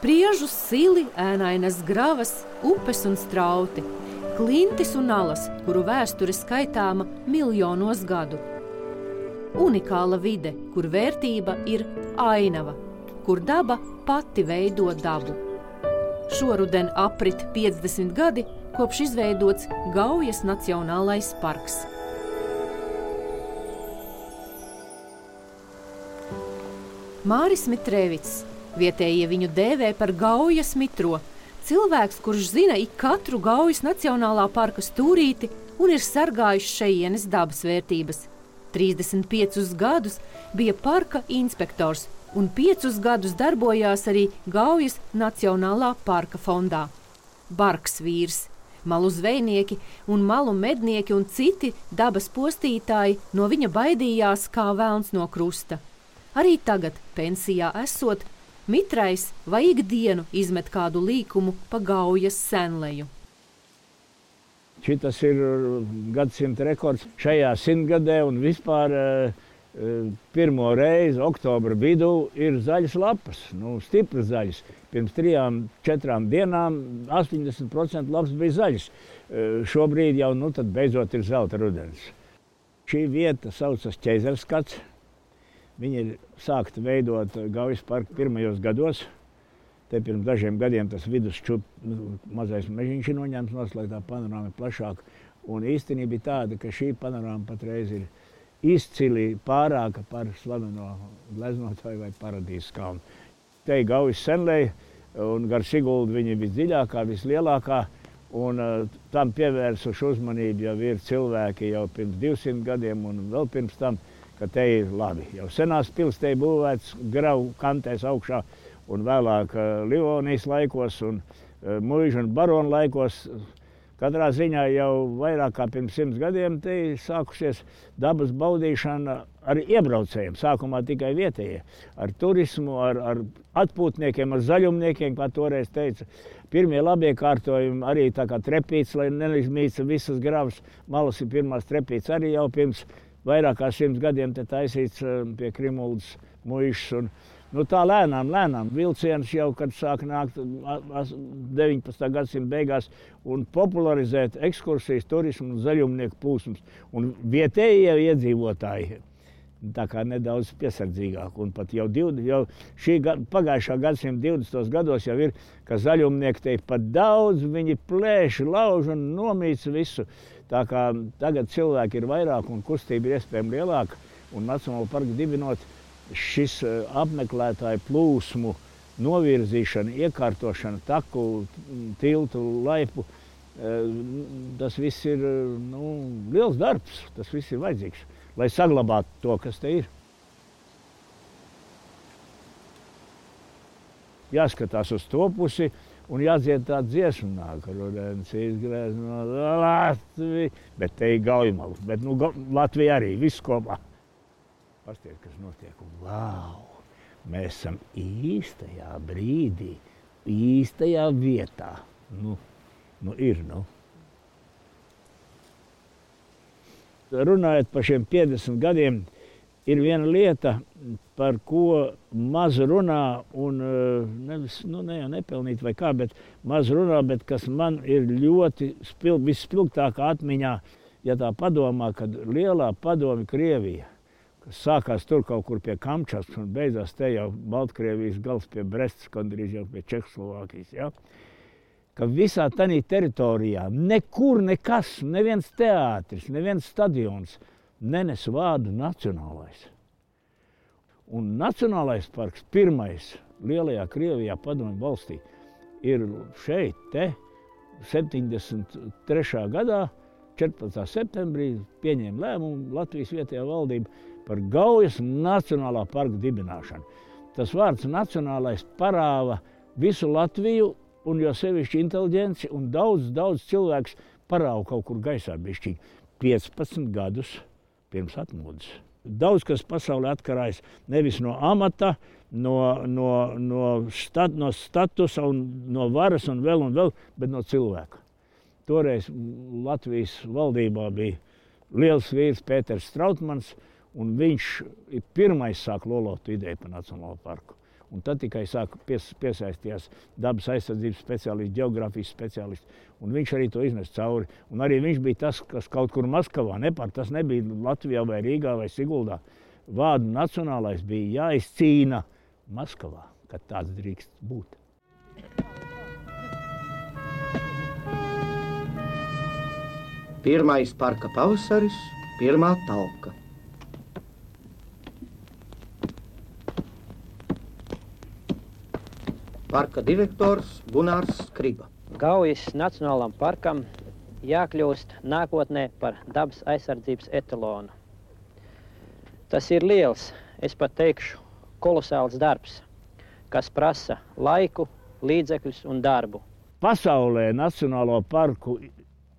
Priežu sili, ēnainas gravas, upes un strauti, klintis un alas, kuru vēsture skaitāma miljonos gadu. Unikāla vide, kur vērtība ir ainava, kur daba pati veido dabu. Šoruden aprit 50 gadi, kopš izveidots Gaujas Nacionālais parks. Māris Mitrēvics. Vietējie viņu dēvē par Gaujas mitro. Cilvēks, kurš zina ik katru Gaujas Nacionālā parka stūrīti un ir sargājis šejienes dabas vērtības. 35 gadus bija parka inspektors un 5 gadus darbojās arī Gaujas Nacionālā parka fondā. Bargs vīrs, malu zvejnieki un malu mednieki un citi dabas postītāji no viņa baidījās kā velns no krusta. Arī tagad, pensijā esot, Mitrais vai ikdienu izmet kādu līkumu pa Gaujas senleju. Šitas ir gadsimta rekords šajā simtgadē un vispār pirmo reizi oktobra vidū ir zaļas lapas, stipras zaļas. Pirms 3-4 dienām 80% lapas bija zaļas. Šobrīd jau tad beidzot ir zelta rudens. Šī vieta saucas Ķeizerskats. Viņa ir sākta veidot Gaujas parka pirmajos gados. Te pirms dažiem gadiem tas mazais mežiņš ir noņemts, lai tā panorāma ir plašāka. Un īstenība bija tāda, ka šī panorāma patreiz ir izcili pārāka par slaveno gleznotāju vai Paradīzes kalnu. Te ir Gaujas senleja, un gar Siguldu viņa ir visdziļākā, vislielākā. Un tam pievērsuši uzmanību jau ir cilvēki jau pirms 200 gadiem un vēl pirms tam, ka te ir labi. Jau senās pils te ir būvēts gravu kantēs augšā un vēlāk Livonijas laikos un muižu un baronu laikos. Katrā ziņā jau vairāk kā pirms 100 gadiem te ir sākusies dabas baudīšana ar iebraucējiem. Sākumā tikai vietējie. Ar turismu, ar atpūtniekiem, ar zaļumniekiem, kā toreiz teica. Pirmie labie kārtojumi arī tā kā trepīts, lai neizmīca visas gravas. Malas ir pirmās trepīts arī jau pirms vairāk kā 100 gadiem te taisīts pie Krimuldas muižas. Tā lēnām vilciens jau, kad sāk nākt 19. gadsimta beigās un popularizēt ekskursijas, turismu un zaļumnieku plūsmas. Un vietējie iedzīvotāji tā kā nedaudz piesardzīgāk. Un pat jau pagājušā gadsimta 20. gados jau ir, ka zaļumnieki te pat daudz, viņi plēši, lauž un nomīca visu. Tā kā tagad cilvēki ir vairāk un kustība ir iespējami lielāka. Un Nacionālo parku dibinot, šis apmeklētāju plūsmu novirzīšana, iekārtošana, taku, tiltu, laipu, tas viss ir liels darbs, tas viss ir vajadzīgs, lai saglabātu to, kas te ir. Jāskatās uz to pusi un jādzied tā dziesma, nāk rudens izgrēzno Latviju, bet te ir Gaujmalu, bet Latvija arī, viss kopā. Pastiet, kas notiek. Vau! Mēs esam īstajā brīdī, īstajā vietā. Ir. Runājot par šiem 50 gadiem, ir viena lieta, par ko maz runā un ne jau nepelnīt vai kā, bet maz runā, bet kas man ir ļoti visspilgtākā atmiņā, ja tā padomā, kad lielā padomju Krievija, kas sākās tur kaut kur pie Kamčatkas un beidzās te jau Baltkrievijas gals pie Brestas, gandrīz jau pie Čehoslovākijas. Ja? Ka visā tanī teritorijā nekur nekas, neviens teātris, neviens stadions nenes vārdu nacionālais. Un Nacionālais parks pirmais lielajā Krievijā padomju valstī ir šeit, te, 73. gadā, 14. septembrī pieņēma lēmumu Latvijas vietējā valdība par Gaujas Nacionālā parka dibināšanu. Tas vārds nacionālais parāva visu Latviju un jo sevišķi inteliģenci un daudz cilvēks parāva kaut kur gaisā bišķiņ 15 gadus pirms atmodas. Daudz kas pasaulē atkarājas nevis no amata, no statusa un no varas un vēl, bet no cilvēka. Toreiz Latvijas valdībā bija liels vīrs Pēters Strautmans, Un viņš pirmais sāk lolot ideju par Nacionālo parku. Un tad tikai sāka piesaistījās dabas aizsardzības speciālisti, geogrāfijas speciālisti. Un viņš arī to iznes cauri. Un arī viņš bija tas, kas kaut kur Maskavā, tas nebija Latvijā vai Rīgā vai Siguldā. Vārdu nacionālais bija jāizcīna Maskavā, kad tāds drīkst būt. Pirmais parka pavasaris, pirmā talka. Parka direktors Gunārs Skriba. Gaujas Nacionālam parkam jākļūst nākotnē par dabas aizsardzības etalonu. Tas ir liels, es pat teikšu, kolosāls darbs, kas prasa laiku, līdzekļus un darbu. Pasaulē Nacionālo parku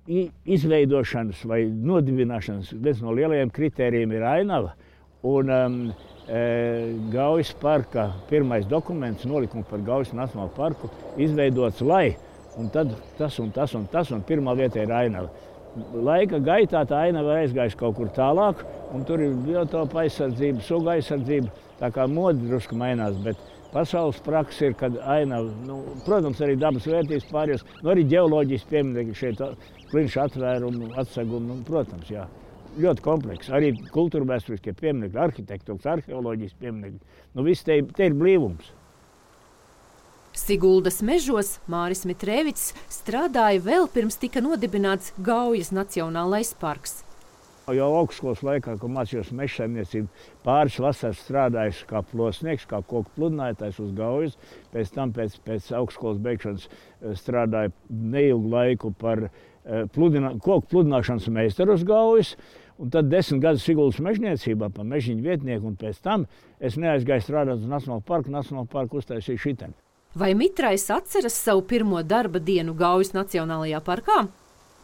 izveidošanas vai nodibināšanas viens no lielajiem kritērijiem ir ainava. Un Gaujas parka pirmais dokuments, nolikums par Gaujas Nacionālo parku, izveidots, lai, un tad tas un tas un tas, un pirmā vietā ir ainava. Laika gaitā tā ainava aizgājusi kaut kur tālāk, un tur ir biotopa aizsardzība, suga aizsardzība, tā kā modi drusku mainās, bet pasaules praksa ir, kad ainava, protams, arī dabas vērtības pārējos, arī ģeoloģijas pieminekļi šeit, klinša atvērumu, atsegumu, protams, jā. Ļoti kompleks. Arī kultūra vēsturiskie pieminekļi, arhitektūras, arheoloģijas pieminekļi. Viss te ir blīvums. Siguldas mežos Māris Mitrēvics strādāja vēl pirms tika nodibināts Gaujas Nacionālais parks. Jau augstskolas laikā, kad mācījos mežsaimniecību, pāris vasaras strādājuši kā plosnieks, kā koku pludinātājs uz Gaujas. Pēc tam pēc augstskolas beigšanas strādāju neilgu laiku par koku pludināšanas meistaru uz Gaujas. Un tad 10 gadus Siguldas mežniecībā par mežiņu vietnieku, un pēc tam es neaizgāju strādāt uz Nacionālo parku uztaisīju šiteni. Vai Mitrais atceras savu pirmo darba dienu Gaujas Nacionālajā parkā?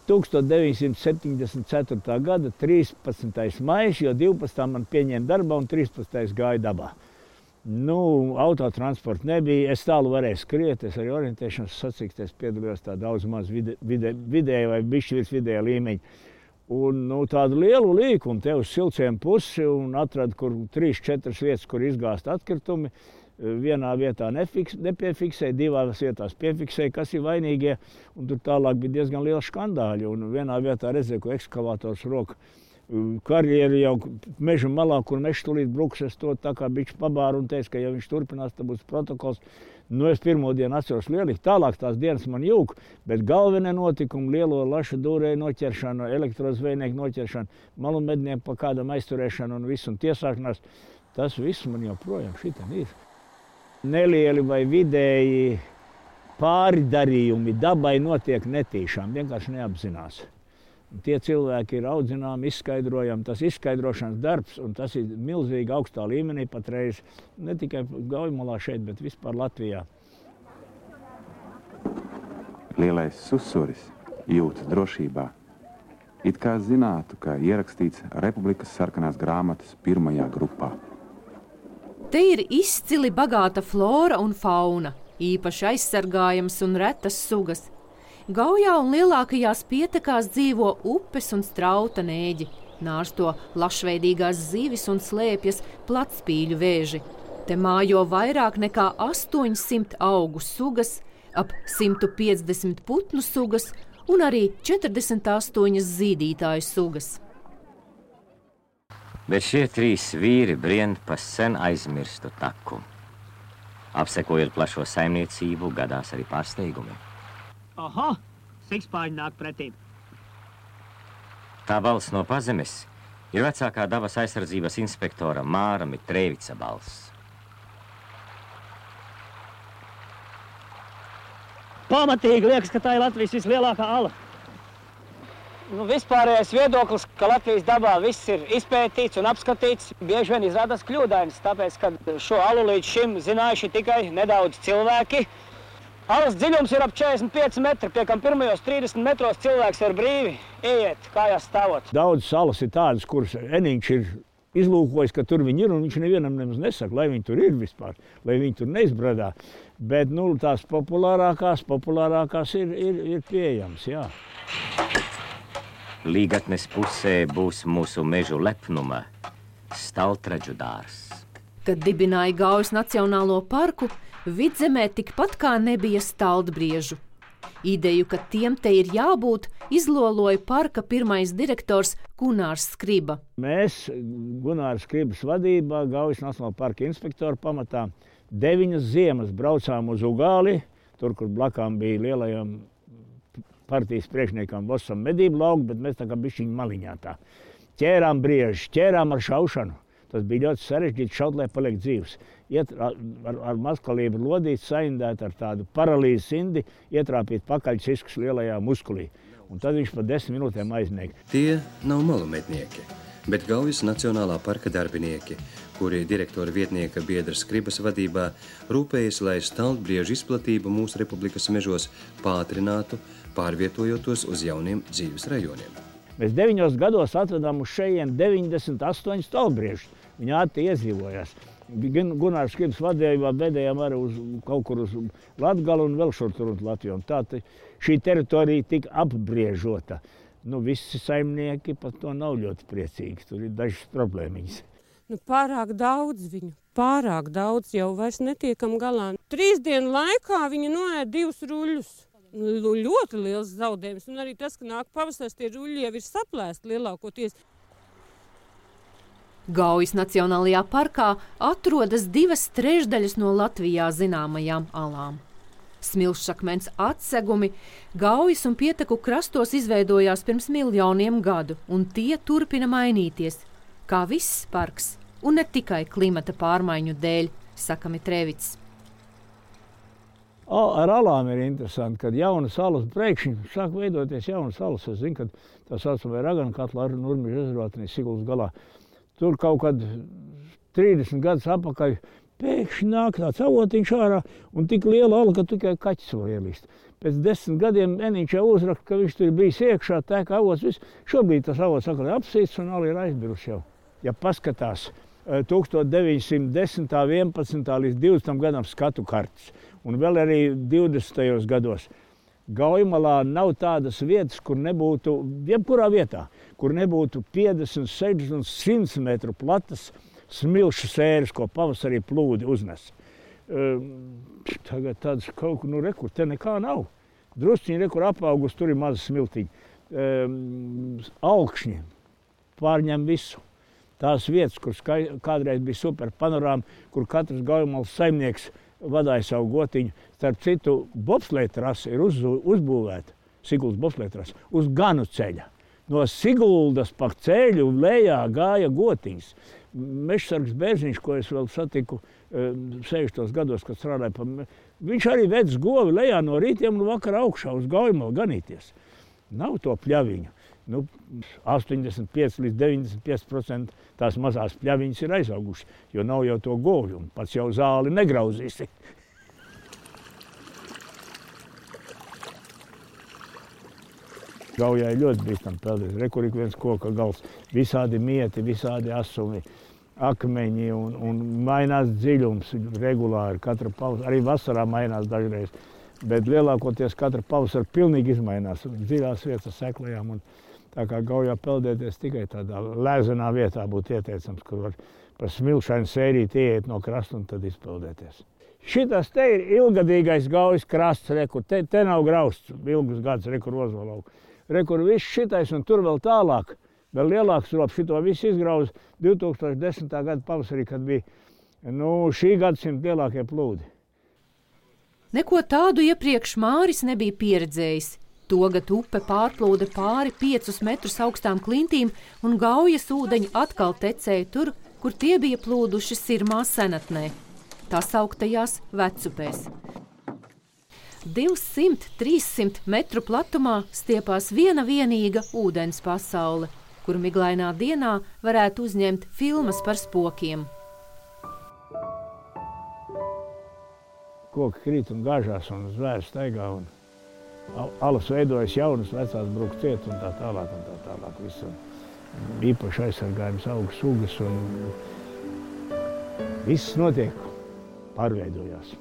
1974. gada 13. maijs, jo 12. man pieņēma darbā un 13. gāja dabā. Autotransporta nebija, es tālu varēju skriet, es arī orientēšanas sacīkstēs piedalījos tā daudz maz vidēja vai bišķi virs vidēja līmeņa. Un tādu lielu līkumu te uz Silciem pusi un atradu, kur 3-4 vietas, kur izgāst atkritumi. Vienā vietā nepiefiksēja, divās vietās piefiksēja, kas ir vainīgie. Un tur tālāk bija diezgan liela skandāļi. Un vienā vietā redzēju, ko ekskavators roka karjeri jau meža malā, kur mežs tūlīt bruks, es to tā kā bišķi pabāru un teicu, ka ja viņš turpinās, tad būs protokols. Es pirmo dienu atceros lielīgi, tālāk tās dienas man jūg, bet galvenie notikumi, lielo lašu dūrēju noķeršana, elektrozvejnieku noķeršana, malu mednieku pa kādam aizturēšana un visu un tiesāšanās, tas viss man joprojām šitam ir. Nelieli vai vidēji pārdarījumi dabai notiek netīšām, vienkārši neapzinās. Tie cilvēki ir audzināmi, izskaidrojami, tas izskaidrošanas darbs, un tas ir milzīgi augstā līmenī patreiz, ne tikai Gaujmalā šeit, bet vispār Latvijā. Lielais susuris jūtas drošībā. It kā zinātu, ka ierakstīts Republikas sarkanās grāmatas pirmajā grupā. Te ir izcili bagāta flora un fauna, īpaši aizsargājams un retas sugas. Gaujā un lielākajās pietekās dzīvo upes un strauta nēģi, nārsto lašveidīgās zivis un slēpjas platspīļu vēži. Te mājo vairāk nekā 800 augu sugas, ap 150 putnu sugas un arī 48 zīdītāju sugas. Bet šie 3 vīri brien pa sen aizmirstu taku. Apsekojot plašo saimniecību, gadās arī pārsteigumi. Aha, sikspāņi nāk pretī. Tā balss no pazemes ir vecākā dabas aizsardzības inspektora Māra Mitrēvica balss. Pamatīgi liekas, ka tā ir Latvijas vislielākā ala. Vispārējais viedoklis, ka Latvijas dabā viss ir izpētīts un apskatīts, bieži vien izrādās kļūdains, tāpēc, ka šo alu līdz šim zinājuši tikai nedaudz cilvēki. Alas dziļums ir ap 45 metri, pie kam pirmajos 30 metros cilvēks var brīvi ieiet, kājās stāvot. Daudz salas ir tādas, kuras Eniņš ir izlūkojis, ka tur viņi ir, un viņš nevienam nemaz nesaka, lai viņi tur ir vispār, lai viņi tur neizbradā. Bet tās populārākās ir pieejams, jā. Līgatnes pusē būs mūsu mežu lepnuma, Staltraģu dārzs. Kad dibināja Gaujas Nacionālo parku, Vidzemē tikpat kā nebija staldbriežu. Ideju, ka tiem te ir jābūt, izloloja parka pirmais direktors Gunārs Skriba. Mēs, Gunārs Skribas vadībā, Gaujas Nacionālā parka inspektoru pamatā, 9 ziemas braucām uz Ugāli, tur, kur blakām bija lielajam partijas priekšniekam Vosam medību lauku, bet mēs tā kā bišķiņi maliņā tā. Ķērām briežus, ķērām ar šaušanu. Tas bija ļoti sarežģīti šaut, lai paliek dzīvs. Iet ar mazkalību lodīt, saindēt ar tādu paralīzes indi, ietrāpīt pakaļciskus lielajā muskulī. Un tad viņš pa 10 minūtēm aizmiega. Tie nav malumetnieki, bet Gaujas Nacionālā parka darbinieki, kuri direktora vietnieka biedra Skribas vadībā rūpējas, lai staldbriežu izplatību mūsu republikas mežos pātrinātu, pārvietojotos uz jauniem dzīves rajoniem. Mēs 9 gados atvedām uz šejien 98 staldbriežus. Viņi ātri iedzīvojās. Gunārs Skribas vadībā bedējām arī kaut kur uz Latgalu un vēl šur tur uz Latviju. Tā šī teritorija tika apbriežota. Visi saimnieki par to nav ļoti priecīgi. Tur ir dažas problēmiņas. Pārāk daudz viņu. Pārāk daudz jau vairs netiekam galā. 3 dienu laikā viņi noēd 2 ruļļus. Ļoti liels zaudējums. Un arī tas, ka nāk pavasaris, tie ruļļi jau ir saplēsti lielākoties. Gaujas Nacionālajā parkā atrodas 2/3 no Latvijā zināmajām alām. Smilšakmens atsegumi Gaujas un Pieteku krastos izveidojās pirms miljoniem gadu, un tie turpina mainīties, kā viss parks, un ne tikai klimata pārmaiņu dēļ, saka Mitrēvits. Ar alām ir interesanti, kad jaunas salas pēkšņi sāk veidoties jaunas salas. Es zinu, ka tā saucamā Ragana katla ar Nurmeža ezervātenī Sigulas galā. Tur kaut kad 30 gadus atpakaļ pēkšņi nāk tāds avotiņš ārā un tik liela ala, ka tikai kaķis var ielīst. Pēc 10 gadiem Eniņš jau uzraksta, ka viņš tur bijis iekšā, tek avots, viss. Šobrīd tas avots atkal ir apsīts un ala ir aizbirusi jau. Ja paskatās 1910. 11. līdz 20. gadam skatu kartes un vēl arī 20. gados. Gaujamalā nav tādas vietas, kur nebūtu, jebkurā vietā, kur nebūtu 50, 60 un 100 metru platas smilšu sēras, ko pavasarī plūdi uznes. Tagad tādas kaut kur, rekur, te nekā nav. Drusciņi, rekur apaugus, tur ir maza smiltiņa. Augšņi pārņem visu. Tās vietas, kur kādreiz bija super panorāma, kur katrs Gaujamalas saimnieks vadāja savu gotiņu. Starp citu, bobsleja trase ir uzbūvēta, Siguldas bobsleja trase, uz Ganu ceļa. No Siguldas pa ceļu lejā gāja gotiņas. Mežsargs Bērziņš, ko es vēl satiku 60. gados, kad strādāju, viņš arī vedz govi lejā no rītiem un vakarā augšā uz Gaujamalu ganīties. Nav to pļaviņu. 85 līdz 95% tās mazās pļaviņas ir aizaugušas, jo nav jau to govju, un pats jau zāli negrauzīsi. Gaujā ir ļoti bīstam peldēt. Rekur ik viens koka gals, visādi mieti, visādi asumi, akmeņi un mainās dziļums regulāri. Katra pavasara, arī vasarā mainās dažreiz, bet lielākoties katra pavasara pilnīgi izmainās. Dziļās vietas seklējām un tā kā Gaujā peldēties tikai tādā lēzenā vietā būtu ieteicams, kur var par smilšainu sērīt ieiet no krasta un tad izpeldēties. Šitas te ir ilgadīgais Gaujas krasts, rekur, te nav grausts ilgus gadus, rekur Ozolau. Rekur viss šitais un tur vēl tālāk, vēl lielāks rops, šito visu izgrauza 2010. Gada pavasarī, kad bija šī gadsimta lielākie plūdi. Neko tādu iepriekš Māris nebija pieredzējis. Togad upe pārplūda pāri 5 metrus augstām klintīm un Gaujas ūdeņi atkal tecēja tur, kur tie bija plūduši Sirmā senatnē, tā sauktajās Vecupēs. 200–300 metru platumā stiepās viena vienīga ūdens pasaule, kur miglainā dienā varētu uzņemt filmas par spokiem. Koki krīt un gāžās un zvēri staigā un alas veidojas jaunas, vecās brūk ciet un tā tālāk. Visu īpaši aizsargājums augu sugas un viss notiek, pārveidojās.